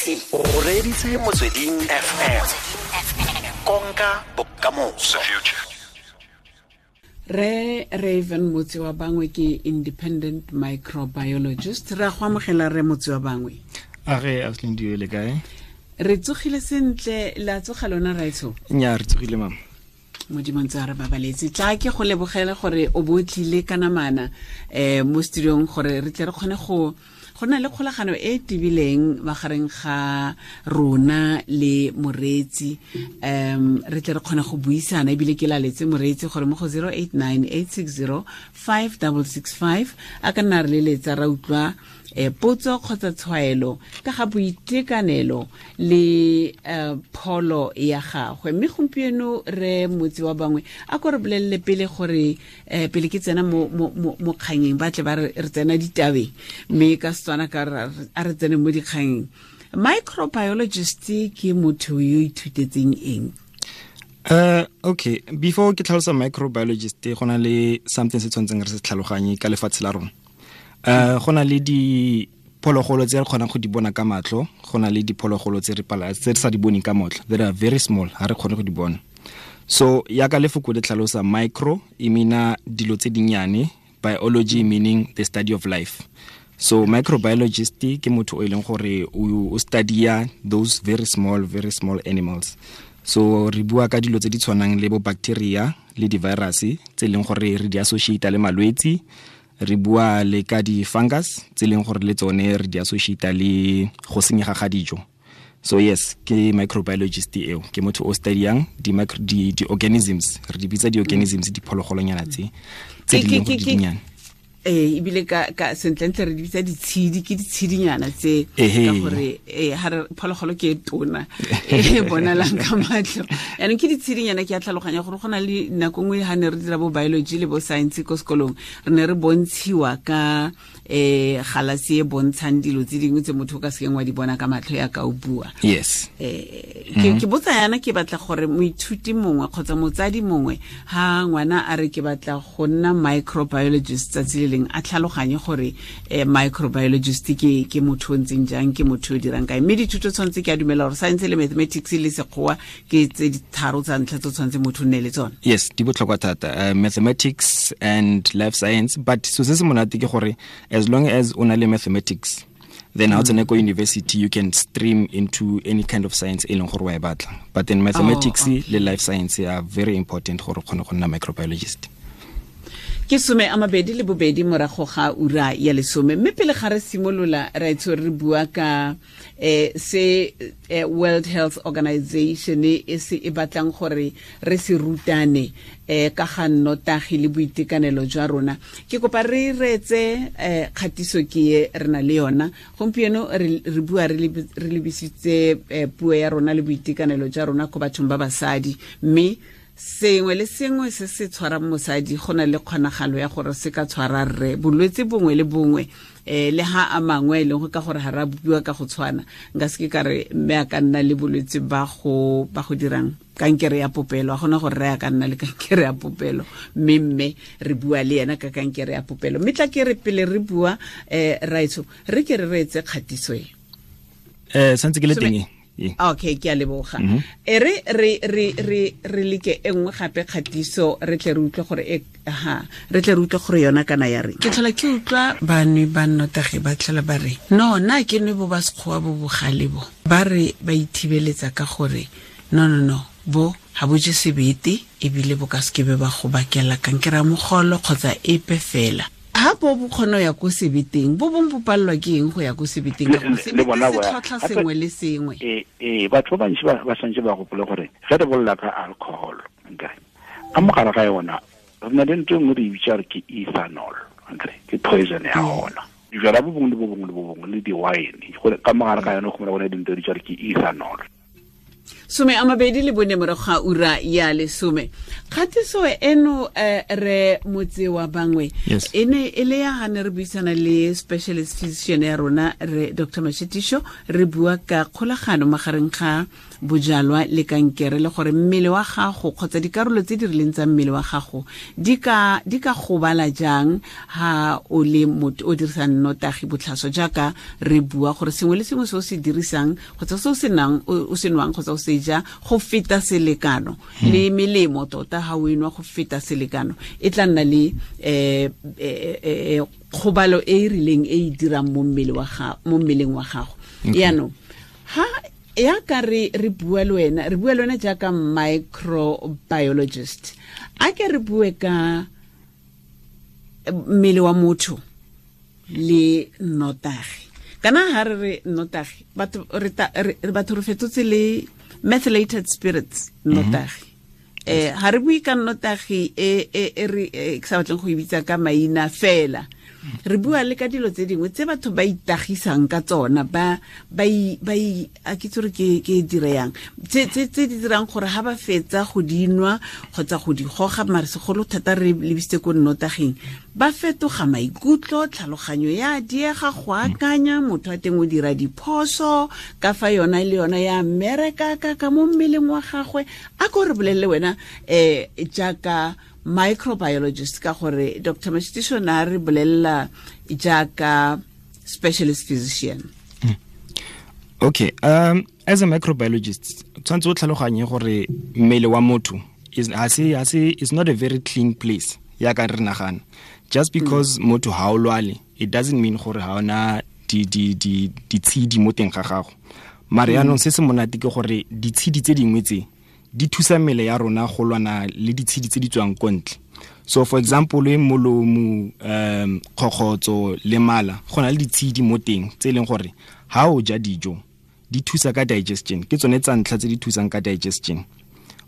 O reditse Motsweding FM, konka bokamoso. Re Raven Motse wa Bangwe ke independent microbiologist. Re a go amogela, re Motse wa Bangwe. A re Auslin, le kae? Re tsogile sentle, la tsoga lona, raitsho? Nya, re tsogile, mama. Modimo ntse a re babaletse. Tla ke go lebogele gore o bo tlile ka namana mo studiong gore re tle re kgone go na le kgolagano e e tibileng magareng ga rona le moreetsi, re tle re kgone go buisana. Ebile ke laletse moreetsi gore mo go 089 860 5665 a ka nna re leletsa, ra utlwa potso kgotsa tshwaelo ka ga boitekanelo le pholo ya gagwe. Mme gompieno, re Motse wa Bangwe, a ko re bolelele pele gore pele ke tsena mo kganyeng, ba tle ba re tsena ditabeng, mme ka Setswana ka a re tsene mo dikganyeng, microbiologist ke motho yo ithutetseng eng? Okay, before ke tlhalosa microbiologist, go na le something se tshwanetseng re se tlhaloganye ka lefatshe la rona. Go na le diphologolo tse re kgonang go di bona ka matlho, go na le diphologolo tse re pala tse re sa di boneng ka matlho, that are very small, ha re kgone go di bona. So yaka lefoko le tlhalosa, micro e meana dilo tse dinnyane, biology meaning the study of life. So microbiologist ke motho o e leng gore o studya those very small, very small animals. So re bua ka dilo tse di tshwanang le bo bacteria le di-virus tse e leng gore re di associate le malwetsi. Re bua le ka di-fungus tse e leng gore le tsone re di associate le go senyega ga dijo. So yes, ke microbiologist eo ke motho o studyang di-organisms, re di bitsa di-organisms, diphologolonyana tse di leng gore di dinnyane. Ee, ebile ka sentlentle re di bitsa ditshedi, ke ditshedinyana tse, ka gore ha re phologolo ke e tona e bonalang ka matlho, yaanong ke ditshedinyana. Ke a tlhaloganya gore go na le nako nngwe ha ne re dira bo biology le bo science ko sekolong, re ne re bontshiwa ka galase e bontshang dilo tse dingwe tse motho o ka sekeng wa di bona ka matlho ya ka o bua. Ke botsa yana, ke batla gore moithuti mongwe kgotsa motsadi mongwe, ha ngwana a re ke batla go nna microbiologist tsatsi le leng, a tlhaloganye gore microbiologist ke motho o ntseng jang, ke motho o dirang kae. Mme dithuto tshwanetse, ke a dumela gore science le mathematics le Sekgowa ke tse di tharo tsa ntlha tse tshwanetse motho o nne le tsone. Yes, di botlhokwa thata, mathematics and life science. But so se se monate ke gore as long as o na le mathematics, then ha o tsene ko university, you can stream into any kind of science e leng gore wa e batla. But then mathematics le life science are very important gore o kgone go nna microbiologist. Ke 22 morago ga ura ya 10. Mme pele ga re simolola, ra itse re bua ka se World Health Organization e se e batlang gore re se rutane ka ga nnotagi le boitekanelo jwa rona. Ke kopa re reetse kgatiso ke e re na le yona gompieno. Re bua re lebisitse puo ya rona le boitekanelo jwa rona ko bathong ba basadi, mme sengwe le sengwe se se tshwarang mosadi go na le kgonagalo ya gore se ka tshwara rre, bolwetse bongwe le bongwe, le ha a mangwe e leng go ka gore ga ra bopiwa ka go tshwana. Nka se ke ka re mme a ka nna le bolwetse ba go dirang kankere ya popelo, a gona gore re a ka nna le kankere ya popelo, mme re bua le ena ka kankere ya popelo. Mme tla ke re pele re bua, raitsho, re ke re reetse kgatiso e. Santse ke le teng e. Okay, ke a leboga. E re leke e nngwe gape kgatiso, re tle re utlwe gore e ha re tle re utlwe gore yona kana ya reng. Ke tlhola ke utlwa banwe ba nnotagi ba tlhola ba re, no, nna ke nwe bo ba Sekgowa bo bogale bo, ba re ba ithibeletsa ka gore no, no, no, bo ga bo je sebete, ebile bo ka sekebe ba go bakela kankere ya mogolo kgotsa epe fela. Ha bo kgona go ya ko sebeteng, bo bong bo palelwa ke eng go ya ko sebeteng? Ka gore Le sebete bona se tlhotlha sengwe le sengwe. Ee, batho ba bantši ba santse ba gopole gore ge re bolela ka alcohol, nkere ka mogare ga yona re na le ntho e nngwe re e bitsa re ke ethanol, nkere ke poison ya gona. Dijala bo bongwe le bo bongwe le bo bongwe le di-wine, gore ka mogare ga yone go mona go ne dintho di bitsa re ke ethanol. 24 morago ga ura ya 10. Kgatiso eno re motse wa bangwe e ne e le ya ga ne re buisana le specialist physician ya rona re Dr. Mashitisho, re bua ka kgolagano magareng ga bojalwa le kankere, le gore mmele wa gago kgotsa dikarolo tse di rileng tsa mmele wa gago di ka gobala jang ha o le motho o dirisang nnotagi botlhaswa, jaaka re bua gore sengwe le sengwe se o se dirisang kgotsa se o se nang o se nwang kgotsa o se ja go feta selekano, le melemo tota ha o enwa go feta selekano e tla nna le kgobalo e e rileng e e dirang mo mmeleng wa gago. Yaanong ha ya ka re bua le wena, re bua le wena jaaka microbiologist, a ke re bue ka mmele wa motho le nnotagi. Kana ha re re nnotagi, batho re fetotse le methylated spirits nnotagi. Ha re bue ka nnotagi e re ke sa batleng go e bitsa ka maina fela, re bua le ka dilo tse dingwe tse batho ba itagisang ka tsona, ba a ke tsore ke dire yang tse di dirang gore ha ba fetsa go dinwa kgotsa go di goga, mare segolo thata re lebisitse ko nnotaging, ba fetoga maikutlo, tlhaloganyo ya diega go akanya, motho a teng o dira diphoso ka fa yona le yona ya mmereka ka mo mmeleng wa gagwe. A ko re bolelele wena jaaka microbiologist, ka gore Dr. Mashitisho na re bolelela jaaka specialist physician. Okay, as a microbiologist, tshwanetse o tlhaloganye gore mmele wa motho is not a very clean place ya ka re nagana. Just because motho ha o lwale, it doesn't mean gore ha ona ditshedi mo teng ga gago. Mare yaanong se se monate ke gore ditshedi tse dingwe tse di thusa mmele ya rona go lwana le ditshedi tse di tswang ko ntle. So for example, molomo, kgokgotso le mala, go na le ditshedi mo teng tse e leng gore ha o ja dijo di thusa ka digestion, ke tsone tsa ntlha tse di thusang ka digestion.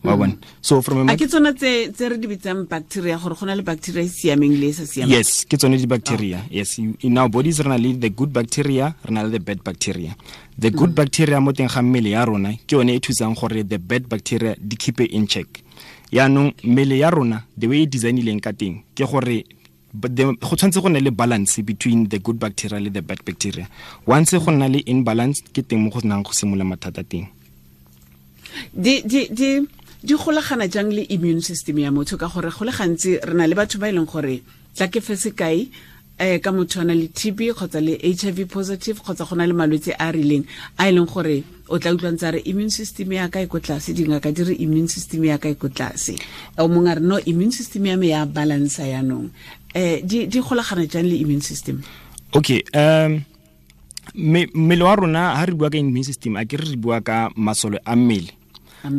Wa bona? So from a ke tsone tse re di bitsang bacteria, gore go na le bacteria e siameng le e sa siamang. Yes, ke tsone di bacteria. Yes, in our bodies re na le the good bacteria, re na le the bad bacteria. The good bacteria mo teng ga mmele ya rona ke yone e thusang gore the bad bacteria di keep in check. Yaanong mmele ya rona the way e designileng ka teng ke gore go tshwanetse go nne le balance between the good bacteria le the bad bacteria. Once go nna le imbalance, ke teng mo go nang go simolola mathata teng. Di golagana jang le immune system ya motho, ka gore go le gantsi re na le batho ba e leng gore tla ke fe sekai ka motho a na le TB kgotsa le HIV positive kgotsa go na le malwetse a rileng a e leng gore o tla utlwa ntse a re immune system ya ka e ko tlase, dingaka di re immune system ya ka e ko tlase, o mongwe a re no, immune system ya me ya balance yanong. Di golagana jang le immune system? Okay, mmele wa rona ha re bua ka immune system, a ke re bua ka masole a mmele.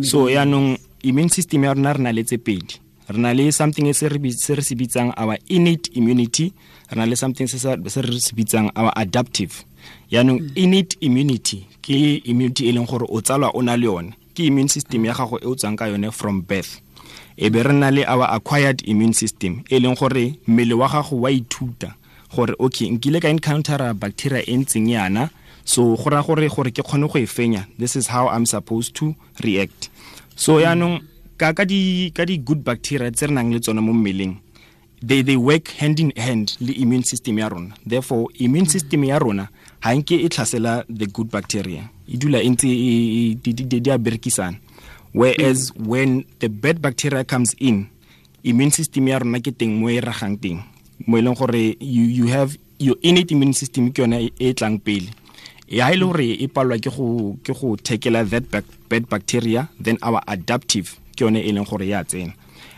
So yaanong immune system ya rona re na le tse pedi. Re na le something se re se bitsang our innate immunity, re na le something se re se bitsang our adaptive. Yaanong innate immunity ke immunity e leng gore o tsalwa o na le yone, ke immune system ya gago e o tswang ka yone from birth. E be re na le our acquired immune system e leng gore mmele wa gago wa ithuta gore okay, nkile ka encounter bacteria e ntseng yana, so go ra gore ke kgone go e fenya, this is how I'm supposed to react. So yaanong ka di good bacteria tse re nang le tsone mo mmeleng, they work hand in hand le immune system ya rona. Therefore immune system ya rona ha nke e tlhasela the good bacteria, e dula e ntse di a berekisana. Whereas when the bad bacteria comes in, immune system ya rona ke teng mo e ragang teng, mo e leng gore you have your innate immune system ke yone e tlang pele. Ya e le gore e palwa ke go tackle that bad bacteria, then our adaptive ke yone e leng gore ya tsena.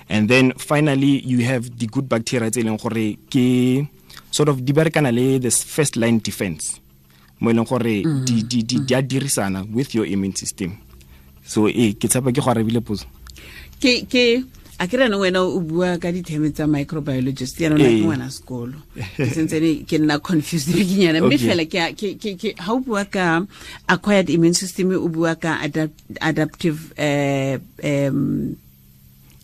And then finally you have the good bacteria tse e leng gore ke sort of di berekana le the first line defense, mo e leng gore di a dirisana with your immune system. So ke tshepa ke go arabile potso. Ke a ke rena wena o bua ka ditheme tsa microbiologist, ya rona ke ngwana sekolo, ke sentse ke nna confused bikinyana, mme fela ke ha o bua ka acquired immune system, o bua ka adaptive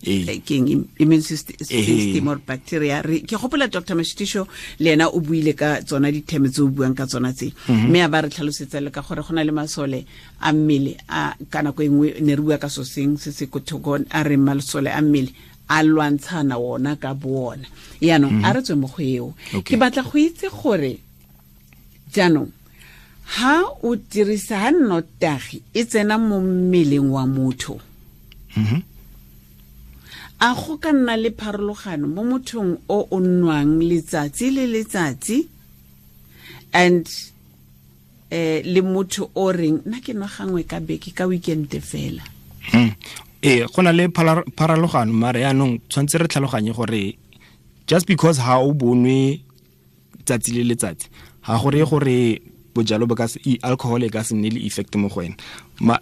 King immune system or bacteria. Ke gopola Dr. Mashitisho le ena o buile ka tsona ditheme tse o buang ka tsona tse, mme a ba re tlhalosetsa le ka gore go na le masole a mmele a ka nako e nngwe ne re bua ka so seng se se kothoko, a re masole a mmele a lwantshana wona ka bona. Yaanong a re tswe mo go eo. Ke batla go itse gore jaanong ha o dirisa ha nnotagi e tsena mo mmeleng wa motho, a go ka nna le pharologano mo mothong o o nwang letsatsi le letsatsi and le motho o reng nna ke nwa gangwe ka beke ka weekend fela? Ee, go na le pharologano, mare yaanong tshwanetse re tlhaloganye gore just because ha o bonwe tsatsi le letsatsi ga gore gore bojalo bo ka alcohol e ka se nne le effect mo go wena.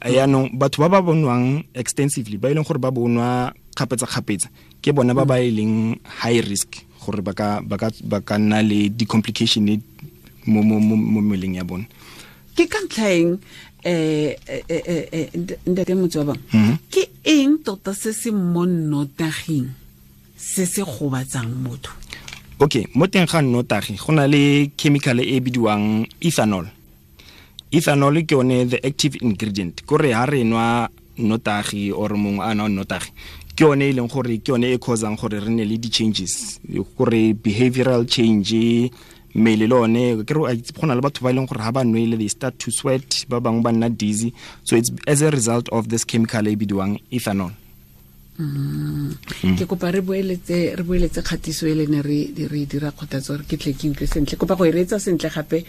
Yaanong batho ba ba bonwang extensively, ba e leng gore ba bonwa kgapetsa-kgapetsa, ke bona ba ba e leng high risk gore ba ka nna le di-complication mo mmeleng ya bone. Ke ka ntlha eng ntate Motse wa bangwe, ke eng tota se se mo nnotaging se se gobatsang motho? Okay, mo teng ga nnotagi go na le chemical e bidiwang ethanol. Ethanol ke yone the active ingredient. Kore ha re nwa nnotagi or mongwe a nwa nnotagi, ke yone e leng gore ke yone e causang gore re nne le di-changes, gore behavioral change, mmele le one ke re go na le batho ba e leng gore ha ba nwele they start to sweat, ba bangwe ba nna dizzy. So it's as a result of this chemical e bidiwang ethanol. Ke kopa re boeletse kgatiso e le ne re dira kgothatso gore ke tle ke utlwe sentle. Kopa go e reetsa sentle gape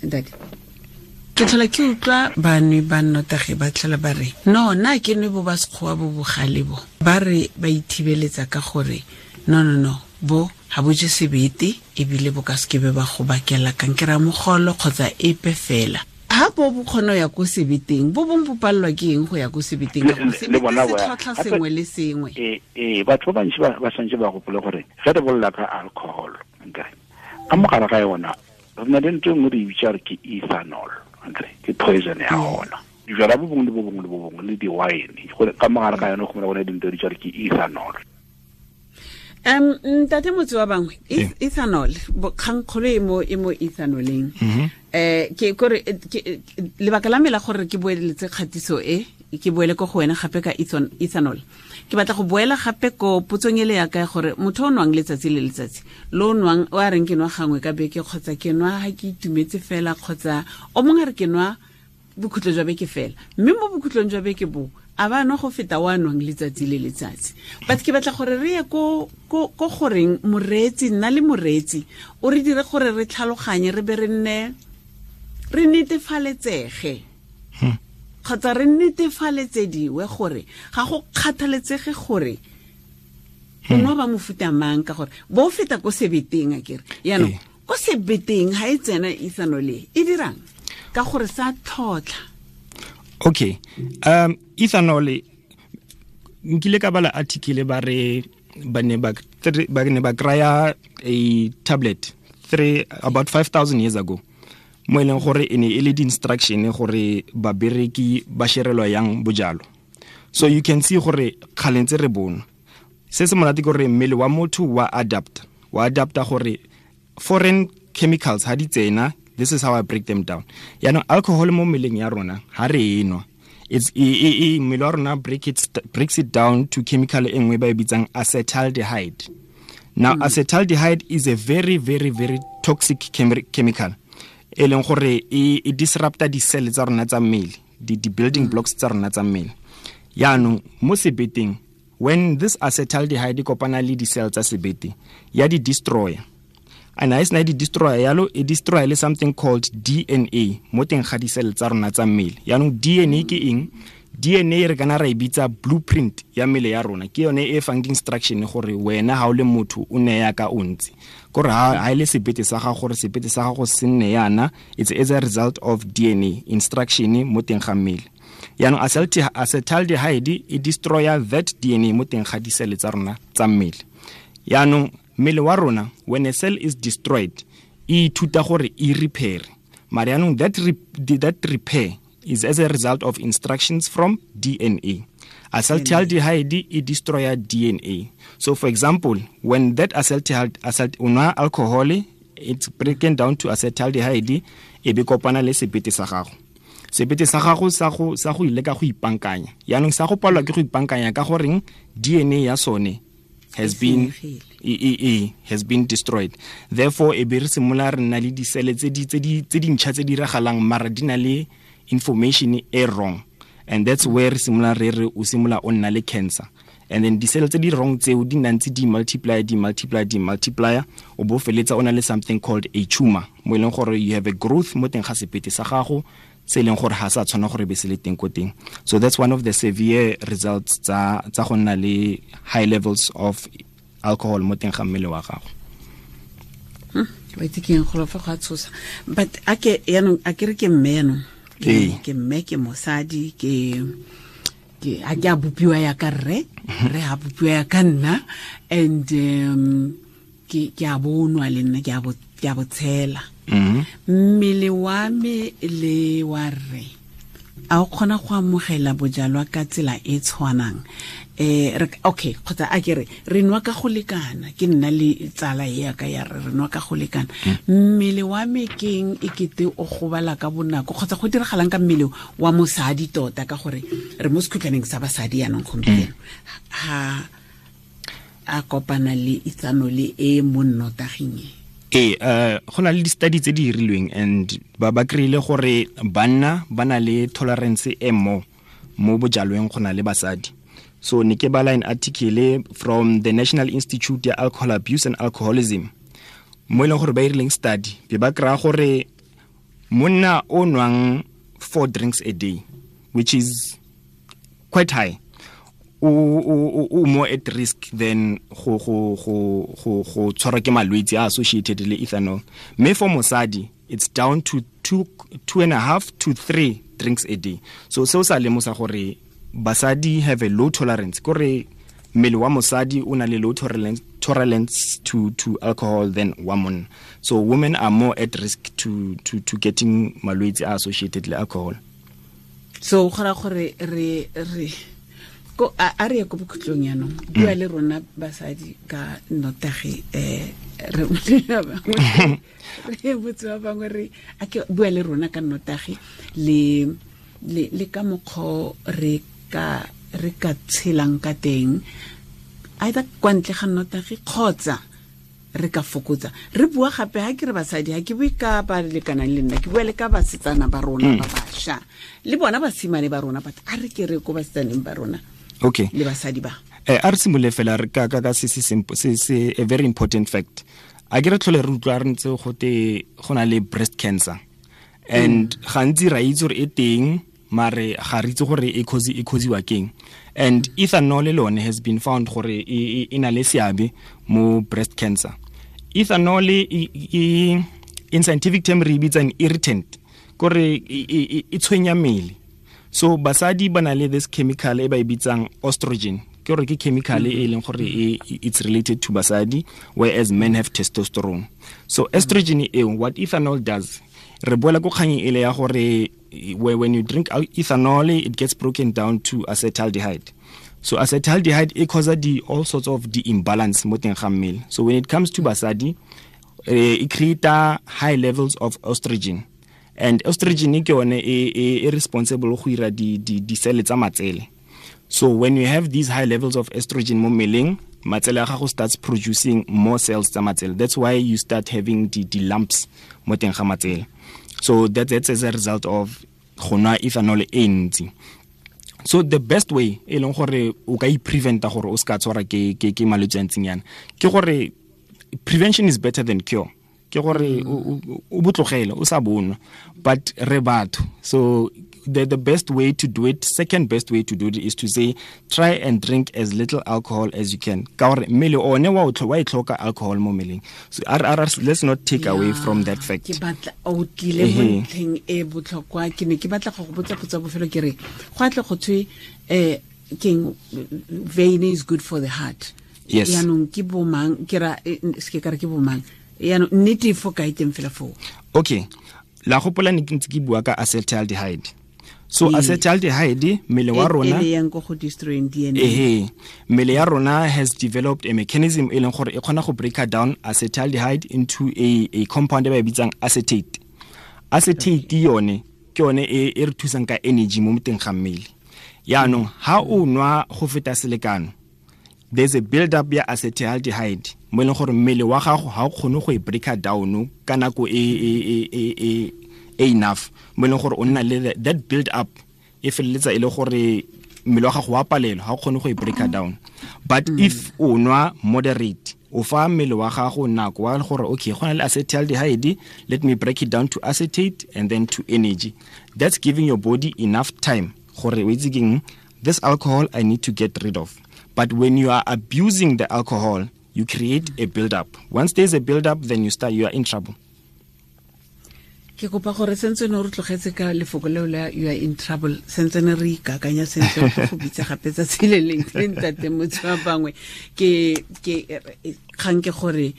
ntate. Ke tlhola ke utlwa banwe ba nnotagi ba tlhola ba re no, nna ke nwe bo ba sekgowa bo bogale bo, ba re ba ithibeletsa ka gore no no no, bo ga bo je sebete ebile bo ka sekebe ba go bakela kankere ya mogolo kgotsa epe fela. Ha bo bo kgona ya ko sebeteng, bo bong bo pallwa ke eng go ya ko sebeteng? Ka gore sebete se tlhotlha sengwe le sengwe. Ee, batho ba bantsi ba santse ba gopole gore ge re bolela ka alcohol, nkere ka mogare ga yona re na le ntho e nngwe re e bitsa re ke ethanol, nkere ke poison ya gona. Dijwala bo bongwe le bo bongwe le bo bongwe le di-wine ka mogare ga yone go mona gone dintho di bitsa re ke ethanol. Ntate Motse wa bangwe, ethanol kgangkgolo e mo ethanoleng. Ke kore lebaka la me la gore ke boeletse kgatiso e, ke boele ko go wena gape ka ethanol. Ke batla go boela gape ko potsong ele ya ka gore motho o nwang letsatsi le letsatsi, lo nwang o a reng ke nwa gangwe ka beke kgotsa ke nwa ha ke itumetse fela, kgotsa o mongwe a re ke nwa bokhutlo jwa beke fela, mme mo bokhutlong jwa beke bo a ba nwa go feta wa nwang letsatsi le letsatsi. But ke batla gore re ye ko goreng moreetsi, nna le moreetsi o re dire gore re tlhaloganye, re be re nne re netefaletsege kgotsa re netefaletsediwe gore ga go kgathaletsege gore o nwa ba mofuta mang, ka gore bo feta ko sebeteng akere. Yaanong ko sebeteng ha e tsena ethanol e dirang ka gore sa tlhotlha? Okay, ethanol nkile ka bala article ba re ba ne ba kraya a tablet about 5,000 years ago, mo e leng gore e ne e le di-instruction gore babereki ba sherelwa yang bojalo. So you can see gore kgale ntse re bona se se monate ke gore mmele wa motho wa adapta gore foreign chemicals ha di tsena. This is how I break them down. Yaanong alcohol mo mmeleng ya rona ha re e nwa, mmele wa rona breaks it down to chemical e nngwe ba e bitsang acetaldehyde. Now acetaldehyde is a very very very toxic chemical e leng gore e disrupta di-cell tsa rona tsa mmele, di-building blocks tsa rona tsa mmele. Yaanong mo sebeteng, when this acetaldehyde kopana le di-cell tsa sebete, ya di-destroyer. And ha e sena di-destroyer yalo, e destroy le something called DNA mo teng ga di-cell tsa rona tsa mmele. Yaanong DNA ke eng? DNA re kana ra e bitsa blueprint ya mmele ya rona. Ke yone e fang di-instruction gore wena ha o le motho o ne ya ka o ntse. Kore ha e le sebete sa gago, gore sebete sa gago se nne yana, it's as a result of DNA instruction mo teng ga mmele. Yaanong acetaldehyde e destroya that DNA mo teng ga di-cell tsa rona tsa mmele. Yaanong mmele wa rona, when a cell is destroyed, e ithuta gore e repair. Mare yaanong that repair is as a result of instructions from DNA. Acetaldehyde e destroya DNA. So for example, when that acetaldehyde o nwa alcohol, it's broken down to acetaldehyde, e be kopana le sebete sa gago. Sebete sa gago sa go ile ka go ipankanya. Yaanong sa go palwa ke go ipankanya ka goreng DNA ya sone has been has been destroyed. Therefore e be re simola re nna le disele tse di ntšha tse di diragalang mara di na le information e wrong, and that's where re simola re o simola o nna le cancer. And then disele tse di wrong tseo di nna ntse di multiply o bo feletsa o na le something called a tumor, mo e leng gore you have a growth mo teng ga sebete sa gago se e leng gore ga sa tshwana gore be se le teng ko teng. So that's one of the severe results tsa go nna le high levels of alcohol mo teng ga mmele wa gago. Wa itse ke eng go fa go a tshosa, but a ke yaanong a ke re ke mme yaanong, ke mme ke mosadi, ke a ke a bopiwa ya ka rre, re a bopiwa ya ka nna, and ke a bonwa le nna, ke a botshela. Mmele wa me le wa rre a o kgona go amogela bojalwa ka tsela e tshwanang? Okay, kgotsa a ke re nwa ka go lekana, ke nna le tsala e ya ka ya re nwa ka go lekana. Mmele wa me keng e kete o gobala ka bonako, kgotsa go diragalang ka mmele wa mosadi tota, ka gore re mo sekhutlwaneng sa basadi yanong gompieno, ha a kopana le ethanol e mo nnotaging e? Go na le di-study tse di dirilweng and ba kry-ile gore banna ba na le tolerance e mo bojalweng go na le basadi. So ne ke bala an article from the National Institute ya Alcohol Abuse and Alcoholism, mo e leng gore ba irileng study, be ba kry-a gore monna o nwang 4 drinks a day, which is quite high, o more at risk than go tshwarwa ke malwetse a associated le ethanol. Mme for mosadi it's down to 2.5 to 3 drinks a day. So seo sa lemosa gore basadi have a low tolerance, kore mmele wa mosadi o na le low tolerance to alcohol than wa monna. So women are more at risk to getting malwetse a associated le alcohol. So go ra gore re ko a re ko bokhutlong yanong, bua le rona basadi ka nnotagi, re botse ba bangwe re a ke bua le rona ka nnotagi le ka mokgwa re ka tshelang ka teng, either kwa ntle ga nnotagi kgotsa re ka fokotsa. Re bua gape ha ke re basadi, ha ke bue ka ba lekanang le nna, ke bua le ka basetsana ba rona ba bašwa le bona basimane ba rona, but a re ke re ko basetsaneng ba rona, okay, le basadi ba. A re simolole fela re ka se se a very important fact. A ke re tlhole re utlwa re ntse gote go na le breast cancer, and gantsi ra itse gore e teng, mare ga re itse gore e causiwa keng. And ethanol alone has been found gore e na le seabe mo breast cancer. Ethanol in scientific term re bitsa an irritant, kore e tshwenya mmele. So basadi ba na le this chemical e ba e bitsang estrogen, ke gore ke chemical e leng gore it's related to basadi, whereas men have testosterone. So estrogen eo, what ethanol does, re boela ko kgang ele ya gore when you drink ethanol, it gets broken down to acetaldehyde. So acetaldehyde e causes all sorts of the imbalance mo teng ga mmele. So when it comes to basadi, it creates high levels of estrogen, and estrogen ke yone e responsible go ira di cell tsa matsele. So when you have these high levels of estrogen mo mmeleng, matsele a gago starts producing more cells tsa matsele. That's why you start having the lumps mo teng ga matsele. So that's as a result of go nwa ethanol e ntsi. So the best way e leng gore o ka i-preventa gore o ska tshwara ke malwetse a ntseng yana, ke gore prevention is better than cure. Ke gore o botlogele o sa bonwa, but re batho. So the best way to do it, second best way to do it, is to say try and drink as little alcohol as you can. Ka gore mmele one wa e tlhoka alcohol mo mmeleng. So let's not take away from that fact. Ke batla o tlile mo ntlheng e botlhokwa, ke ne ke batla go go botsa potso bofelo, ke re go atle go thwe keng vein is good for the heart. Yes. Yaanong ke bomang, ke ra se ke ka re ke bomang, yaanong nnete fo kae teng fela foo? Okay, la gopola ne ke ntse ke bua ka acetaldehyde. So acetaldehyde, mmele wa rona e yang go go destroying DNA. Ehe, mmele ya rona has developed a mechanism e leng gore e kgona go break down acetaldehyde into a compound e ba e bitsang acetate. Acetate yone ke yone e re thusang ka energy mo moteng ga mmele. Yaanong ha o nwa go feta selekano, there's a build up ya acetaldehyde mo e leng gore mmele wa gago ha o kgone go e break down ka nako e enough, mo e leng gore o nna le that build up e feleletsa e le gore mmele wa gago wa palelwa, ha o kgone go e break down. But if o nwa moderate, o fa mmele wa gago nako wa gore okay, go na le acetaldehyde, let me break it down to acetate and then to energy. That's giving your body enough time gore o itse keng, this alcohol I need to get rid of. But when you are abusing the alcohol, you create a build up. Once there's a build up, then you are in trouble. Ke kopa gore sentse ne re tlogetse ka lefoko leo la you are in trouble, sentse ne re ikakanya sentle go bitsa gape tsatsi le leng le ntate motho wa bangwe ke kgang ke gore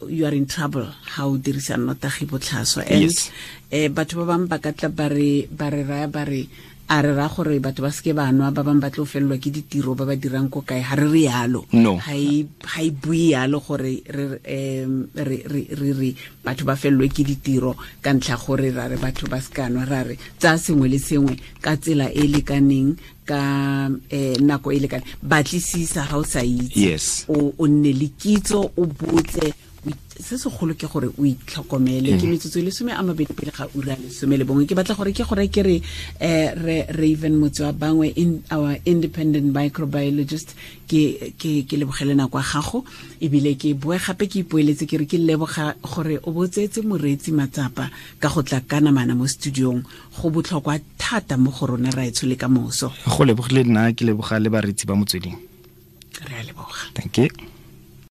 you are in trouble ha o dirisa nnotagi botlhaswa. And batho ba bangwe ba ka tla ba re raya ba re a re ra gore batho ba seke ba nwa, ba bangwe ba tlo felelwa ke ditiro ba ba dirang ko kae. Ha re re yalo, ha e bue yalo gore re re batho ba felelwe ke ditiro ka ntlha gore ra re batho ba seka nwa, ra re tsaya sengwe le sengwe ka tsela e lekaneng, ka nako e lekaneng. Batlisisa ha o sa itse, o nne le kitso, o botse. Se segolo ke gore o itlhokomele. Ke metsotso e 12 pele ga ura 11. Ke batla gore ke gore ke re re Raven Motsoabangwe, in our independent microbiologist, ke lebogele nako ya gago, ebile ke boe gape ke ipoeletse ke re ke leboga gore o botsetse moreetsi matsapa ka go tla ka namana mo studiong. Go botlhokwa thata mo go rona raetsho le ka moso. Go lebogile nna, ke leboga le bareetsi ba Motsweding. Re a leboga. Thank you.